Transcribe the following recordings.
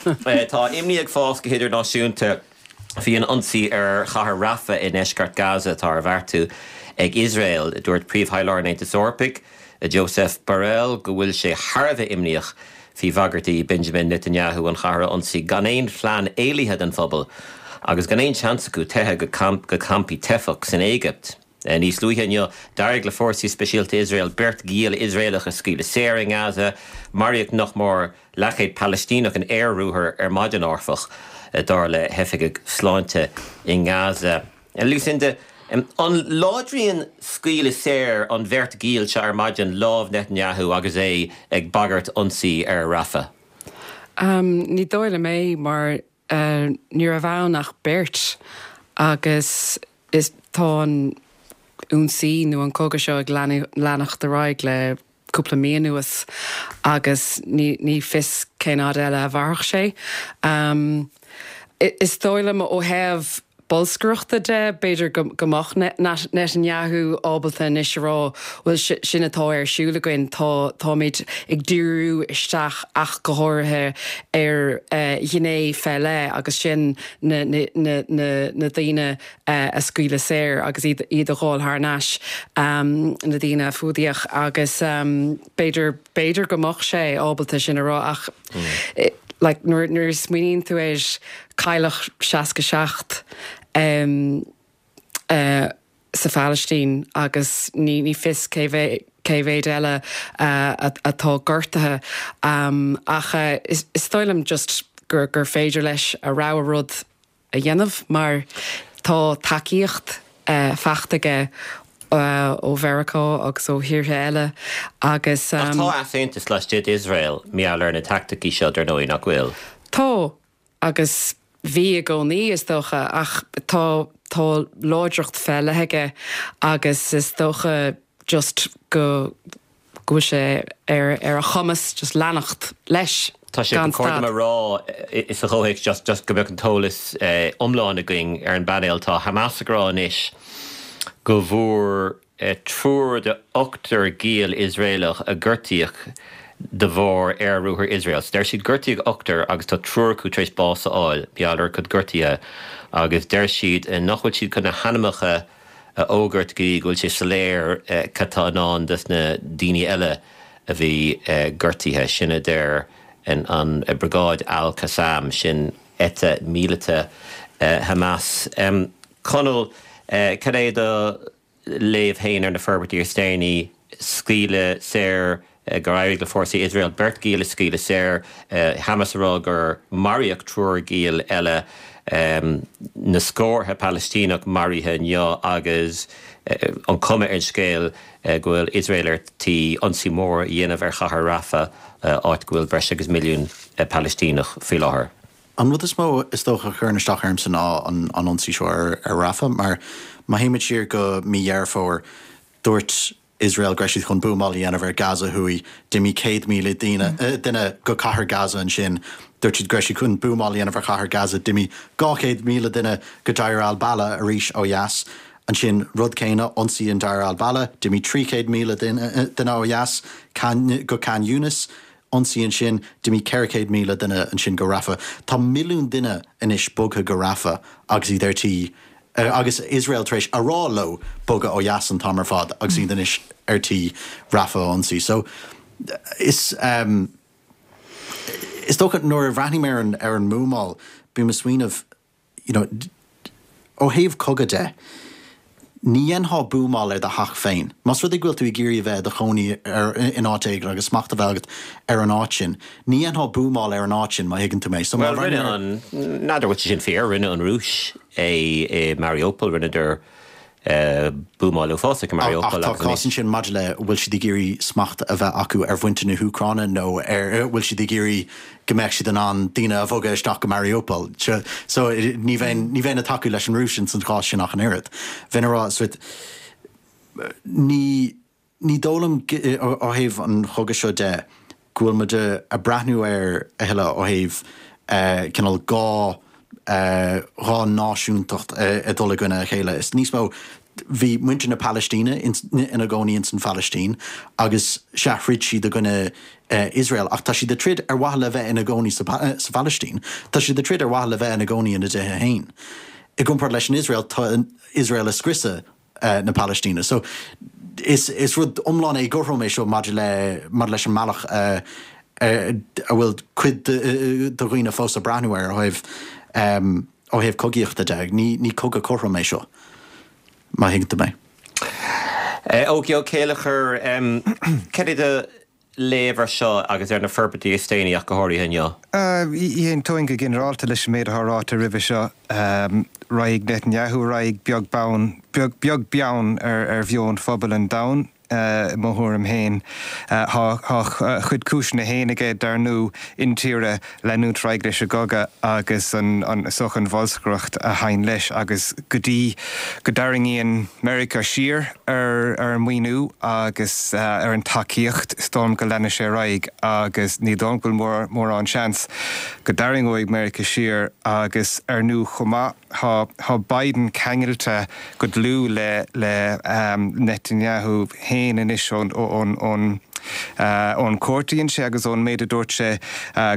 Tá imní ag fás go hidirnáisiúnta faoi an ionsaí ar chathair Rafah i ndeisceart Gaza atá ar bheartú ag Iosrael. Dúirt Príomh-Thaidhleoir an Aontais Eorpaigh, Josep Borrell, go bhfuil sé thar a bheith imníoch faoi bhagairtí Benjamin Netanyahu an chathair a ionsaí gan aon phlean éalaithe don phobal agus gan aon seans acu teitheadh go campaí teifeach san Éigipt. Níos luaithe inniu, d'éirigh le fórsaí speisialta Iosrael beirt ghiall Iosraelach a scaoileadh saor i nGaza. Maraíodh nach mór leathchéad Palaistíneach in aer-ruathar ar maidin, áfach, dar le hoifigigh sláinte i nGaza. Lucinda, an láidríonn scaoileadh saor an bheirt ghiall seo ar maidin lámh Netanyahu agus é ag bagairt ionsaí ar Rafah? Ní dóigh liom é, mar ní raibh ann ach beirt agus is tá an ionsaí nó an cogadh seo ag leanacht ar aghaidh le cúpla mí anuas agus ní fios cén fhad eile a mhairfeadh sé. Is dóigh liom ó thaobh bolscaireachta de, b'fhéidir go mbeadh Netanyahu ábalta anois a rá, bhuel, sin atá ar siúl againn, tá, táimid ag díriú isteach ach go háirithe ar ghné fé leith agus sin na, na, na, na daoine a scaoileadh saor agus iad iad a dh'fháil thar n-ais, na daoine a fuadaíodh agus b'fhéidir, b'fhéidir go mbeadh sé ábalta sin a rá ach like nuair, nuair a smaoiníonn tú air, cailleadh 67 sa Phalaistín agus ní, ní fios cé mhéad, cé mhéad eile atá gortaithe ach is, is dóigh liom just gur, gur féidir leis a rogha rud a dhéanamh mar tá tacaíocht faighte aige ó Mheiriceá agus ó thíortha eile agus. Ach tá easaontas laistigh d'Iosrael mar gheall ar na teaicticí seo dar ndóigh, nach bhfuil? Tá, agus bhí i gcónaí is dócha, ach tá tá láidreacht fé leith aige agus is dócha just go go bhfuil sé ar ar a chumas just leanacht leis Tá sé gan go cóir stad. dom a rá sa chomhthéacs just just go mbeadh an t-eolas iomlán againn ar an bpainéal, tá Hamas ag rá anois go bhfuair triúr de ochtar giall Iosraelach a gortaíodh de bharr aer-ruathar Iosrael. So deir siad gortaíodh ochtar agus tá triúr acu tar éis bás a fháil, mar gheall ar a gcuid gortuithe agus deir siad nach bhfuil siad chun na hainmneacha a fhógairt go dtí go bhfuil sé soiléir cad tá i ndán dos na daoine eile a bhí gortaithe. Sin a deir an Briogáid Al Qassam, sin eite míleata Hamas. Conall, cad é do léamh féin ar na forbairtí is déanaí, scaoileadh saor gur éirigh le fórsaí Iosrael beirt ghiall a scaoileadh saor, Hamas ag rá gur maraíodh triúr giall eile, na scórtha Palaistíneach maraithe inniu agus an chuma ar an scéal go bhfuil Iosrael ar tí ionsaí mór a dhéanamh ar chathair Rafah, áit go bhfuil breis agus milliún Palaistíneach faoi láthair. An rud is mó is dócha a chuireann isteach ormsa ná an ionsaí seo ar Rafah mar má théimid siar go mí Dheireadh Fómhair, dúirt Iosrael go raibh siad chun buamáil a dhéanamh ar Gaza thuaidh. D'imigh 100,000 daoine, duine go cathair Gaza ansin. Dúirt siad go raibh siad chun buamáil a dhéanamh ar chathair Gaza. D'imigh 200,000 duine go Deir al-Balah arís ó dheas. Ansin, rud céanna, ionsaí in Deir al-Balah, d'imigh 300,000 duine ó dheas go Khan Younis. Ionsaí ansin, d'imigh 400,000 duine ansin go Rafah. Tá milliún duine anois bogtha go Rafah agus iad ar tí, agus Iosrael tar éis a rá leo bogadh ó dheas an t-am ar fad agus iad anois ar tí Rafah a ionsaí. So, is, is dócha nuair a bhreathnaím ar an, ar an mbuamáil, bím ag smaoineamh, you know, ó thaobh cogadh de, ní dhéanfá buamáil ar do theach féin. Más rud é go bhfuil tú ag iarraidh a bheith i do chónaí ar, in áit éigin agus smacht a bheith agat ar an áit sin, ní dhéanfá buamáil ar an áit sin, má thuigeann tú mé. So má Bhuel, rinne an, n'fheadar bhfuil sé sin fíor, rinne an Rúis é i Mariupol, rinneadar buamáil uafásach i Mariupol Ach tá cás ansin maidir le bhfuil siad ag iarraidh smacht a bheith acu ar mhuintir na hÚcráine nó ar bhfuil siad ag iarraidh go mbeadh siad in ann daoine a bhogadh isteach go Mariupol. So ní bheinn ní bheinn ag tacú leis an Rúis ins an chás sin ach an oiread. Bheinn ag rá sort ní ní dóigh liom ó thaobh an chogaidh seo de go bhfuil muid ag breathnú air a thuilleadh ó thaobh cineál dhá dhá náisiúntacht ag dul i gcoinne a chéile. Is níos mó. Bhí muintir na Palaistíne ina gcónaí ins an Phalaistín agus sea, throid siad i gcoinne Iosrael ach tá siad ag troid ar mhaithe le bheith ina gcónaí sa Phalaistín. Tá siad ag troid ar mhaithe le bheith ina gcónaí ina dtithe féin. I gcomparáid leis an Iosrael, tá Iosrael ag scriosadh na Palaistíne. So, is is rud iomlán éagothrom é seo maidir le maidir leis an mbealach a a bhfuil cuid de dhaoine fós ag breathnú air ó thaobh ó thaobh cogaíochta de. Ní ní cogadh cothrom é seo, má thuigeann tú mé. Ógie Ó Céilleachair, cad é do léamh ar seo agus ar na forbairtí is déanaí ach go háirithe inniu? Aontóinn go ginearálta leis an méid atá ráite roimhe seo. Raghaidh Netanyahu ar aghaidh beag beann, beag beann ar mheon phobal an domhain. I mo thuairim féin, tá a chuid cúiseanna féin aige, dar ndóigh, intíre leanúint ar aghaidh leis an gcogadh agus an is dócha an bholscaireacht a thagann leis agus go dtí go dtarraingíonn Meiriceá siar ar an maoiniú agus ar an tacaíocht, is dóigh liom go leanfaidh sé ar aghaidh agus ní dóigh liom go bhfuil mórán seans go dtarraingeoidh Meiriceá siar agus ar ndóigh chomh maith, Tá tá Biden ceangailte go dlúth le le Netanyahu féin anois ón ón ón ón cuairt a dhein sé agus ón méid a dúirt sé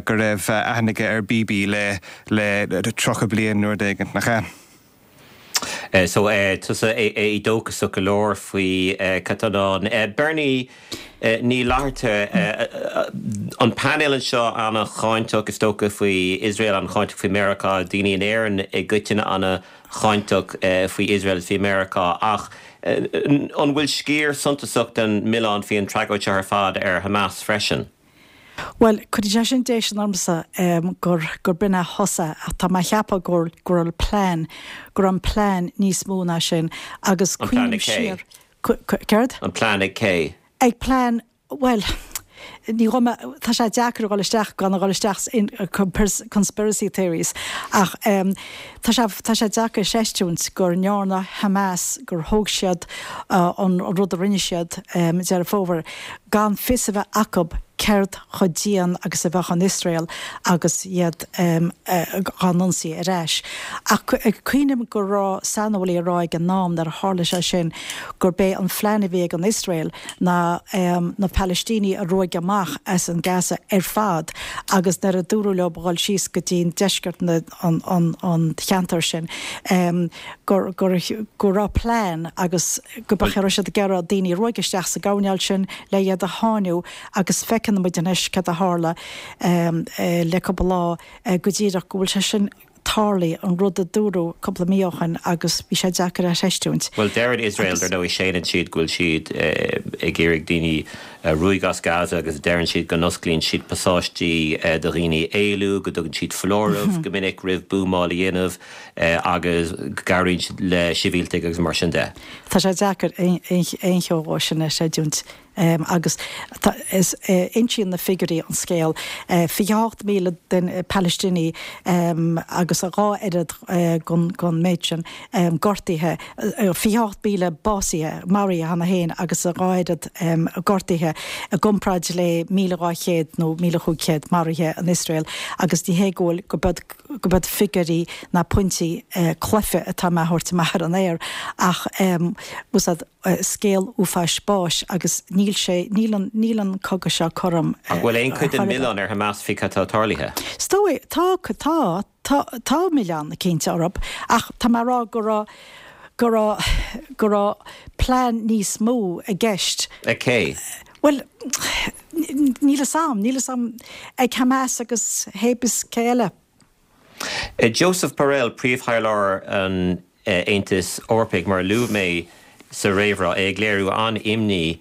go raibh aithne aige ar Bibi le le 30 bliain nó rud éigin, nach ea? So tusa éadóchasach go leor faoi cad tá i ndán. Bernie Ní Fhlatharta, an painéal anseo an-cháinteach is dócha faoi Iosrael, an-cháinteach faoi Meiriceá, daoine in Éirinn i gcoitinne an-cháinteach faoi Iosrael is faoi Meiriceá, ach an bhfuil sciar suntasach den mhilleán faoi an tragóid seo ar fad ar Hamas freisin? Bhuel, cuireann sé sin déistin ormsa gur gur b'in a thosaigh ach tá mé a cheapadh go go raibh plean, go raibh an plean níos mó ná sin agus An plean cuimhním ag cé? siar, Céard? An plean ag cé? Ag plean, bhuel, ní ghabh mé, tá sé deacair a dhul isteach gan a dhul isteach in conspiracy theories ach tá sé, tá sé deacair a chreistiúint go ndearna Hamas, gur thóg siad an rud a rinne siad Deireadh Fómhair gan fios a bheith acu céard chomh dian agus a bheadh an Iosrael agus iad dhá n-ionsaí ar ais. Ach cuimhním go raibh saineolaí ag rá ag an am nuair a tharla sé sin gurb é an phlean a bhí ag an Iosrael ná na Palaistínigh a ruaigeadh amach as an Gaza ar fad agus nuair a dúradh leo a dhul síos go dtí an deisceart an cheantair sin go go raibh plean agus go raibh siad ag iarraidh daoine a ruaigeadh isteach sa gcoirnéal sin le iad a sháinniú agus feiceann muid anois cad a tharla le cúpla lá go díreach go bhfuil sé sin tarlaithe, an rud a dúradh cúpla mí ó shin agus bhí sé deacair a chreistiúint. Bhuel, deireann Iosrael, dar ndóigh, séanann siad go bhfuil siad ag iarraidh daoine a ruaigeadh as Gaza agus deireann siad go n-osclaíonn siad pasáistí do dhaoine éalú, go dtugann siad foláireamh go minic roimh buamáil a dhéanamh agus go gcabhraíonn siad le sibhialtaigh agus mar sin de. Tá sé deacair aon cheo dhó sin a chreidiúint. Agus insíonn na figiúirí an scéal, 28,000 duine Palaistínigh agus a dhá oiread den méid sin gortaithe, 28,000 básaithe, maraithe cheana féin agus a dhá oiread gortaithe i gcomparáid le 1,200 nó 1,500 maraithe in Iosrael agus ní hé go bhfuil, go beag, go beag figiúirí ná pointí cluife atá mé a thabhairt amach ar an aer ach úsáid. scéal uafáis báis agus níl sé, níl an, níl an cogadh seo cothrom Ach bhfuil aon chuid den mhilleán ar Hamas faoi cad tá tarlaithe? Is dóigh, tá, tá, tá, tá milleán cinnte orthu ach tá mé a rá go raibh, go raibh, go raibh plean níos mó i gceist. Ag cé? Bhuel, níl fhios a'm, níl fhios a'm, ag Hamas agus hébis cé eile. Josep Borrell, Príomhthaidhleoir an Aontais Eorpaigh, mar a luaigh mé sa réamhrá, é ag léiriú an-imní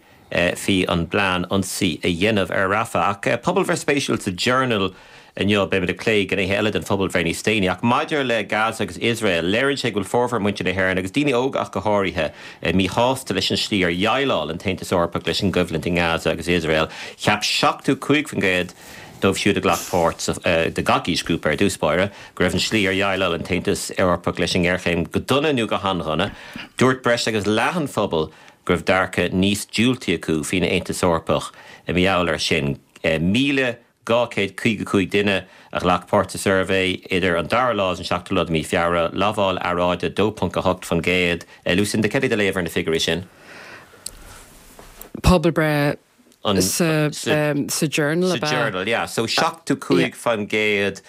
faoi an bplean ionsaí a dhéanamh ar Rafah. Ach pobalbhreith spéisiúil sa Journal inniu, beimid ag plé gnéithe eile den phobalbhreith níos déanaí, ach maidir le Gaza agus Iosrael, léiríonn sé go bhfuil formhór muintir na hÉireann, agus daoine óga ach go háirithe, míshásta leis an slí ar dhéileáil an tAontas Eorpach leis an gcoimhlint i nGaza agus Iosrael. Cheap 75% dóibh siúd a ghlac páirt sa, de gach aoisghrúpa ar dtús báire, go raibh an slí ar dhéileáil an tAontas Eorpach leis an ngéarchéim go dona nó go han-dhona. Dúirt breis agus leath an phobail go raibh dearcadh níos diúltaí acu faoin Aontas Eorpach i mar gheall air sin. 1,000. 255 duine a ghlac páirt sa suirbhé idir an dara lá agus an seachtú lá de mhí Feabhra, lamháil earráide 2.8%. Lucinda, céard é do léamh ar na figiúirí sin? Pobalbhreith sa Journal ab ea? Sa Journal, yeah. So 75%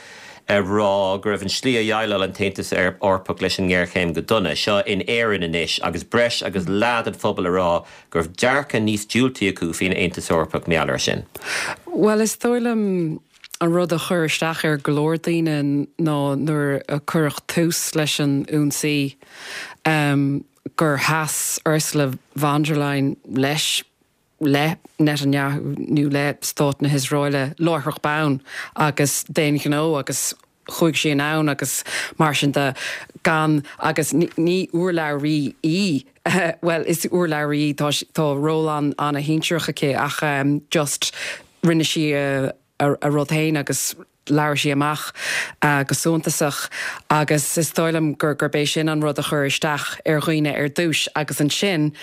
ag rá go raibh an tslí a dhéileáil an tAontas Eorpach leis an ngéarchéim go dona. Seo in Éirinn anois agus breis agus leath den phobal ag rá go raibh dearcadh níos diúltaí acu faoin Aontas Eorpach mar gheall air sin. Bhuel, is dóigh liom an rud a chuir isteach ar go leor daoine ná nuair a cuireadh tús leis an ionsaí gur sheas Ursula von der Leyen leis, le Netanyahu nó le Stát na hIosraeile láithreach bonn agus d'aon ghnó agus chuaigh sí anonn agus mar sin de gan agus ní urlabhraí í, bhuel is urlabhraí í, tá tá ról an-shinsearach aici ach just rinne sí a a rud féin agus labhair sí amach go suntasach agus is dóigh liom gurb é sin an rud a chuir isteach ar dhaoine ar dtús agus ansin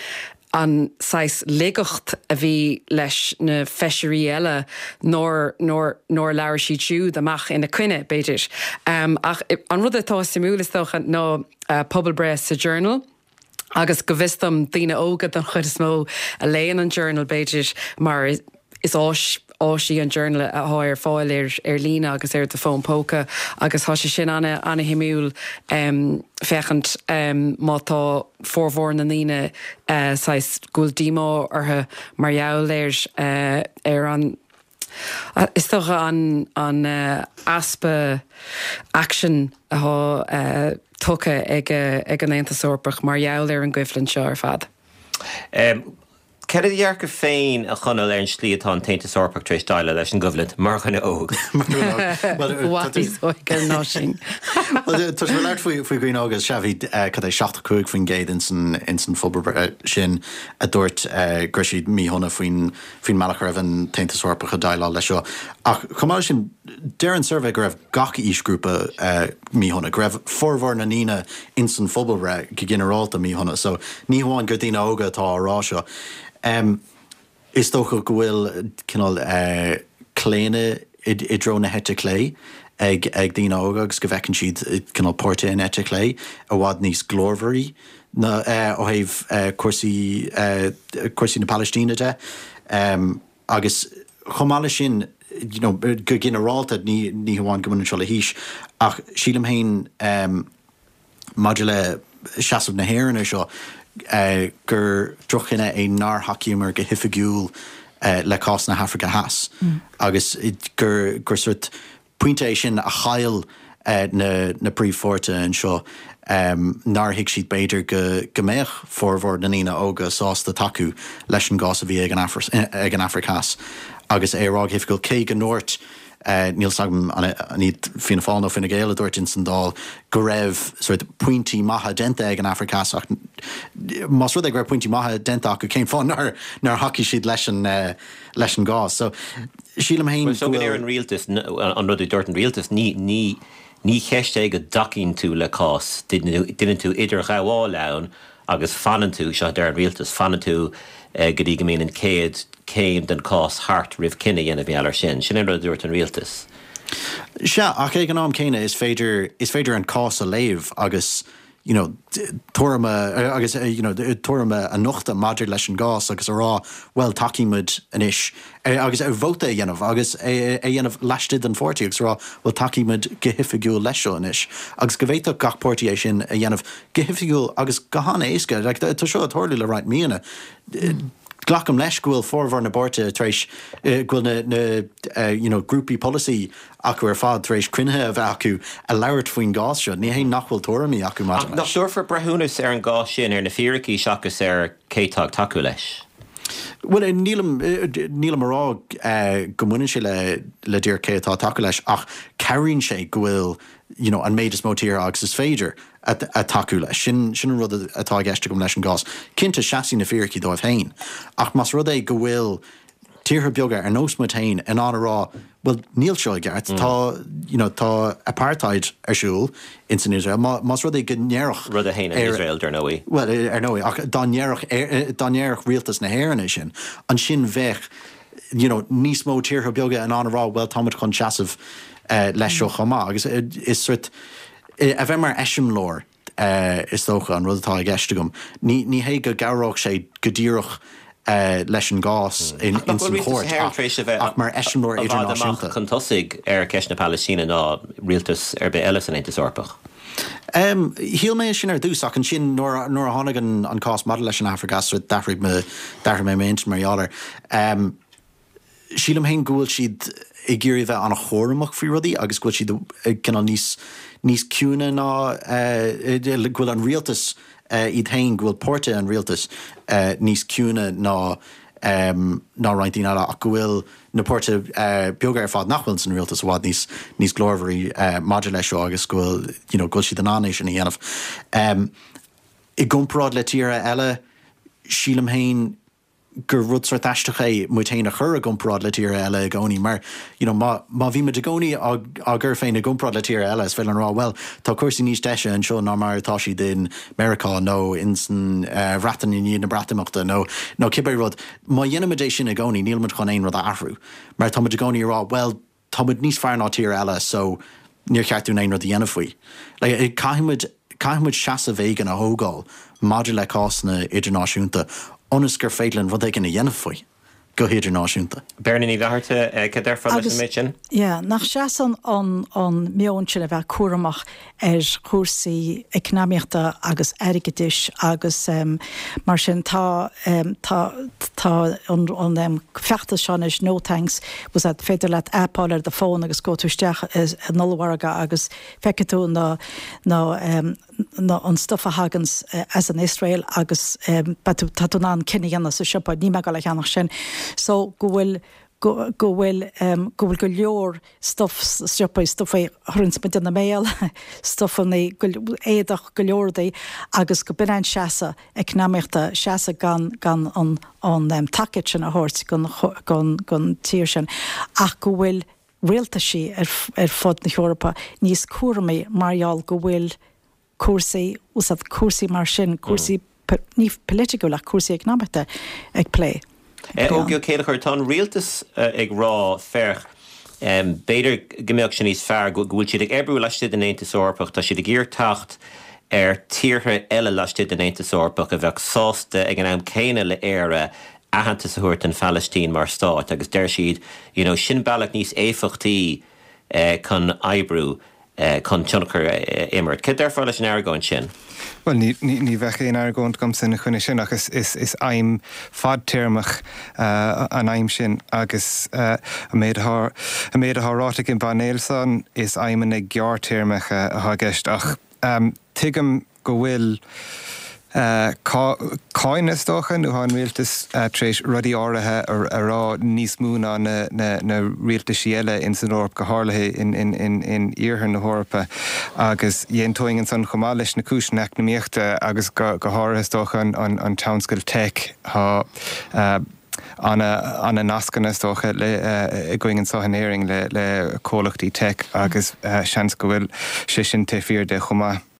an saghas laigeacht a bhí leis na feisirí eile nár, nár, nár labhair siad siúd amach ina coinne, b'fhéidir. Ach an rud atá suimiúil is dócha ná pobalbhreith sa Journal, Agus go bhfios dom, daoine óga don chuid is mó a léann an Journal, b'fhéidir, mar is áis áis í an Journal atá ar fáil ar ar líne agus ar do fón póca agus tá sé sin ana-shuimiúil féachaint má tá formhór na ndaoine saghas go bhfuil díomá orthu mar gheall ar ar an Is dócha an easpa aicsin atá tugtha ag an Aontas Eorpach mar gheall ar an gcoimhlint seo ar fad. Cad é do dhearcadh féin, a Chonaill, ar an slí atá an tAontas Eorpach tar éis déileáil leis an gcoimhlint, mar dhuine óg? I bhfad níos óige ná sin. Tá sibh ag labhairt faoi dhaoine óga, sea, bhí cad é 75% ins an phobalbhreith sin a dúirt go raibh siad míshona faoin faoin mbealach a raibh an tAontas Eorpach ag déileáil leis seo. Ach chomh maith leis sin, deir an suirbhé go raibh gach aoisghrúpa míshona, go raibh formhór na ndaoine ins an phobalbhreith go ginearálta míshona. So ní hamháin gur daoine óga atá á rá seo. Is dócha go bhfuil cineál claonadh i dtreo na heite clé ag daoine óga agus go bhfeiceann siad cineál páirtithe an eite chlé i bhfad níos glórmhairí ná ó thaobh cúrsaí cúrsaí na Palaistíne de. Agus chomh maith leis sin, you know, go ginearálta, ní ní hamháin go mbaineann seo le haois, ach sílim féin maidir le seasamh na hÉireann ar seo, gur droch-chinneadh é nár thacaíomar go hoifigiúil le cás na hAfraice Theas agus gur gur sort Pointe é sin a chaill na príomhpháirtithe anseo, nár thuig siad b'fhéidir go mbeadh formhór na ndaoine óga sásta tacú leis an gcás a bhí ag an Afraic Theas agus é a rá go hoifigiúil, cé go ndúirt, níl 's agam an iad Fianna Fáil nó Fine Gael a dúirt ins an Dáil go raibh sort pointí maithe déanta ag an Afraic Theas ach más rud é go raibh pointí maithe déanta acu cén fáth nár thacaigh siad leis an leis an gcás. So, sílim féin go bhfuil. Bhuel, so an rialtas, an rud a dúirt an rialtas, ní, ní, ní cheist é go dtacaíonn tú le cás, déanann tú idirghabháil ann agus fanann tú, seo a deir an rialtas, fanann tú go dtí go mbíonn an chéad chéim den chás thart roimh cinneadh a dhéanamh mar gheall air sin. Sin an rud a dúirt an rialtas. Sea, ach ag an am céanna is féidir, is féidir an cás a léamh agus you know, tuairim a, agus, you know, tuairim a nochtadh maidir leis an gcás agus a rá, bhuel, tacaímid anois, agus vóta a dhéanamh agus é a dhéanamh laistigh den pháirtí agus a rá, bhuel, tacaímid go hoifigiúil leis seo anois. Agus go bhféadfadh gach páirtí é sin a dhéanamh go hoifigiúil agus go han-éasca. Like, tá seo ag tarlú le roinnt míonna. Glacaim leis go bhfuil formhór na bpáirtithe tar éis, go bhfuil na, na, you know, grúpaí polasaí acu ar fad tar éis cruinnithe a bheith acu a labhairt faoin gcás seo. Ní hé nach bhfuil tuairimí acu maidir leis. Ach nach dtabharfar breithiúnas ar an gcás sin ar na fíricí seachas ar cé atá ag tacú leis? Bhuel, nílim, nílim a rá go mbaineann sé le, le díreach cé atá ag tacú leis ach cabhraíonn sé go bhfuil, you know, an méid is mó tíortha agus is féidir. ag tacú leis. Sin an rud atá i gceist agam leis an gcás. Cinnte, seasfaidh na fíricí dóibh féin, ach más rud é go bhfuil tíortha beaga ar nós muid féin in ann a rá, bhuel, níl seo i gceart, tá, you know, tá apartheid ar siúl ins an Iosrael, más rud é go ndéarfadh. Rud a shéanann Iosrael, dar ndóigh. Bhuel, ar ndóigh, ach dá ndéarfadh, dá ndéarfadh rialtas na hÉireann é sin, ansin bheadh. you know, níos mó tíortha beaga in ann a rá bhuel táimid chun seasamh leis seo chomh maith agus is sort a bheith mar eiseamláir is dócha an rud atá i gceist agam. Ní ní hé go gcabhródh sé go díreach leis an gcás in Ach nach ins bhfuil an rialtas chúirt na hÉireann ach tar éis a bheith ach mar eiseamláir i bhfad amach idirnáisiúnta. chun tosaigh ar cheist na Palaistíne ná rialtas ar bith eile san Aontas Eorpach? Shíl mé sin ar dtús ach ansin nuair nuair a tháinig an an cás maidir leis an Afraic Theas d'athraigh mo d'athraigh mé m'intinn mar gheall air. Sílim féin go bhfuil siad ag iarraidh a bheith an-chúramach faoi rudaí agus go bhfuil siad cineál níos níos ciúine ná go bhfuil an rialtas iad féin, go bhfuil páirtithe an rialtais níos ciúine ná ná roinnt daoine eile ach go bhfuil na páirtithe beaga ar fad nach bhfuil san rialtas i bhfad níos níos glórmhairí maidir leis seo agus go bhfuil you know go bhfuil siad in ann é sin a dhéanamh. I gcomparáid le tíortha eile, sílim féin gur rud sórt aisteach é muid féin a chur i gcomparáid le tíortha eile i gcónaí mar you know má má bhí muid i gcónaí á á gcur féin i gcomparáid le tíortha eile is féidir linn a rá bhuel tá cúrsaí níos deise anseo ná mar atá siad in Meiriceá nó in san Bhreatain i ndiaidh na Breatimeachta nó nó cibé rud. Má dhéanaimid é sin i gcónaí níl muid chun aon rud a athrú mar tá muid i gcónaí ag rá bhuel tá muid níos fearr ná tír eile so níor cheart dúinn aon rud a dhéanamh faoi. Like, caithfidh muid, caithfidh muid seasamh éigin a thógáil maidir le cásanna idirnáisiúnta ionas gur féidir linn rud éigin a dhéanamh faoi go hidirnáisiúnta. Beirne Ní Fhlatharta, cad déarfá leis an Agus, méid sin? yeah, nach seasann an, an meon sin a bheith cúramach ar chúrsaí eacnamaíochta agus airgeadais agus mar sin tá tá tá an an feachtas seo anois No Thanks was that féidir leat app a fháil ar do fón agus gabhfaidh tú isteach in ollmhargadh agus feicfidh tú na na na an stuff a thaganns as an Iosrael agus beidh tú tá tú in ann cinneadh a dhéanamh sa siopa níl mé ag dul a cheannach sin so go bhfuil go go bhfuil go bhfuil go leor stuff sna siopaí, stuff a chuireanns muid ina mbéal, stufanna, éadach, go leor rudaí agus go b'in an seasamh eacnamaíochta, seasamh gan gan an an tacaíocht sin a thabhairt gon gon gon tír sin ach go bhfuil rialtaisí ar ar fud na hEorpa níos cúramaí mar gheall go bhfuil cúrsaí, úsáid cúrsaí mar sin, cúrsaí ní polaitiúil ach cúrsaí eacnamaíochta ag plé. Ógie Ó Céilleachair, tá an rialtas ag rá, féach, b'fhéidir go mbeadh sé níos fearr go bhfuil siad ag oibriú laistigh den Aontas Eorpach, tá siad ag iarraidh teacht ar tíortha eile laistigh den Aontas Eorpach a bheadh sásta ag an am céanna le Éire aitheantas a thabhairt don Phalaistín mar stát agus deir siad, you know, sin bealach níos éifeachtaí chun oibriú. chun tionchar a imirt. Cad déarfá leis an argóint sin? Bhuel, ní bheadh aon argóint agamsa ina choinne sin ach is aidhm fadtéarmach an aidhm sin agus an méid atá an méid atá ráite ag an bpainéal san, is aidhmeanna gearrthéarmacha atá i gceist ach tuigim go bhfuil cáineadh, is dócha, nó tá an rialtas tar éis rudaí áirithe a rá níos mó ná na rialtaisí eile ins an Eoraip, go háirithe in iarthar na hEorpa. Agus d'aontóinn ansan chomh maith leis na cúiseanna eacnamaíochta agus go háirithe, is dócha, an tionscal tech. Tá ana-nascanna, is dócha, againn anseo in Éirinn le comhlachtaí tech agus seans go bhfuil sé sin taobh thiar de chomh maith.